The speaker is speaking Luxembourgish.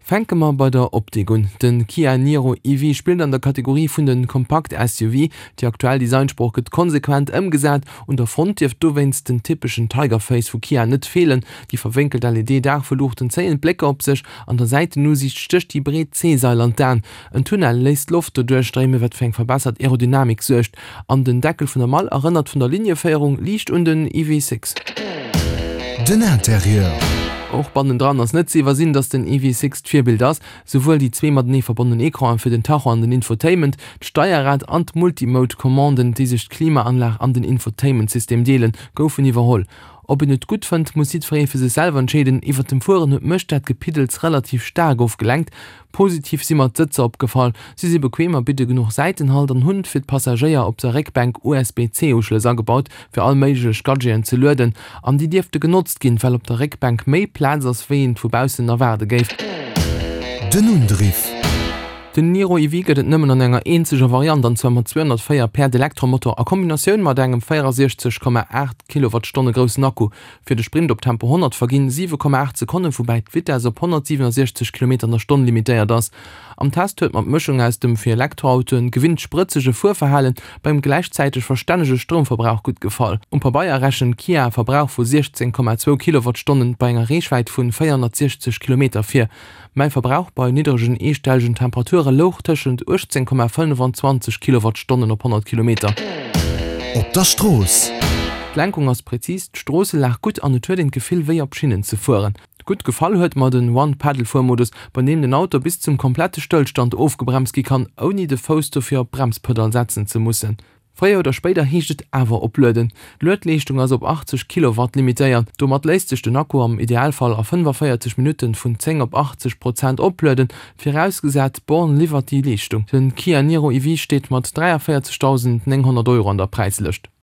Fänke mer bei der Optik un. Den Kia Niro EV spillt an der Kategorie vun den Kompakt-SUV. Déi aktuell Designsprooch gëtt konsequent ëmgesat. Un der Front dierft dowéinst den typeschen Tiger Face vu Kia net feelen. Déi verwénkelt LED-Daachveluuchten zéien d'Blécker op sech. An der Säitenusiicht stécht déi breet C-Sail an d'Aen. En Tunnel léisst d'Loft doduerch stréimen, wat fir eng verbessert Aerodynamik suergt. An den Deckel vun der Mall erënnert vun der Linieféierung liicht un den EV6. Den Interieur. Och bannendran ass net ze iwwersinn, dass den EV6 d'Virbild ass. Souwuel déi zwee matenee verbonnen Ecranen fir den Tacho an den Infotainment, d'Steierrad an d'Multimode-Commanden, déi sech d'Klimaanlag an den Infotainment-System deelen, goufen iwwerholl. Ob een et gutt fënnt, muss jiddweree fir sech selwer entscheeden. Iwwert dem Fueren huet mech dat Gepiddels relativ staark ofgelenkt. Positiv si mer d'Sëtzer opgefall, si si bequem a bidde genuch Säitenhalt an hunn fir d'Passagéier op der Réckbänk USB-C-Uschlëss agebaut, fir all méiglech Gadgeten ze lueden. An déi dierfte genotzt ginn, well op der Réckbänk méi Plaz ass, wéi een vu baussen erwaarde géif. Den Undriff. Den Niro EV gëtt et nëmmen an enger eenzeger Variant, an zwar mat 204 Päerd Elektromotor a Kombinatioun mat engem 64,8 Kilowattstonne groussen Akku. Fir de Sprint op Tempo 100 verginn 7,8 Sekonnen, woubäi d'Vitess op 167 Kilometer an der Stonn limitéiert ass. Am Test huet mer d'Mëschung aus dem fir Elektroautoen gewinnt sprëtzege Fuerverhalen beim gläichzäiteg verstännege Stroumverbrauch gutt gefall. Um Pabeier rechent Kia e Verbrauch vu 16,2 Kilowattstonnen bei enger Reechwäit vun 460 Kilometer vir. Mäi Verbrauch bei niddregen eestellegen Temperature louch tëschent 18,5 an 20 Kilowattstonnen op 100 Kilometer. Op der Strooss. D'Lenkung ass präzis, d'Stroosselag gutt an et huet een d'Gefill wéi op Schinnen ze fueren. Gutt gefall huet mer den One-Pedal-Fuermodus, bei deem den Auto bis zum komplette Stëllstand ofgebremst gi kann, ouni de Fouss dofir op d'Bremspedall setzen ze mussen. Fréier oder spéider heescht et awer oplueden. D'Luedleeschtung ass op 80 Kilowatt limitéiert. Domat léisst sech den Akku am Idealfall a 45 Minutten vun 10 op 80 Prozent oplueden, virausgesat d'Born liwwert déi Leeschtung. Den Kia Niro EV steet mat 43.900 Euro an der Präislëscht.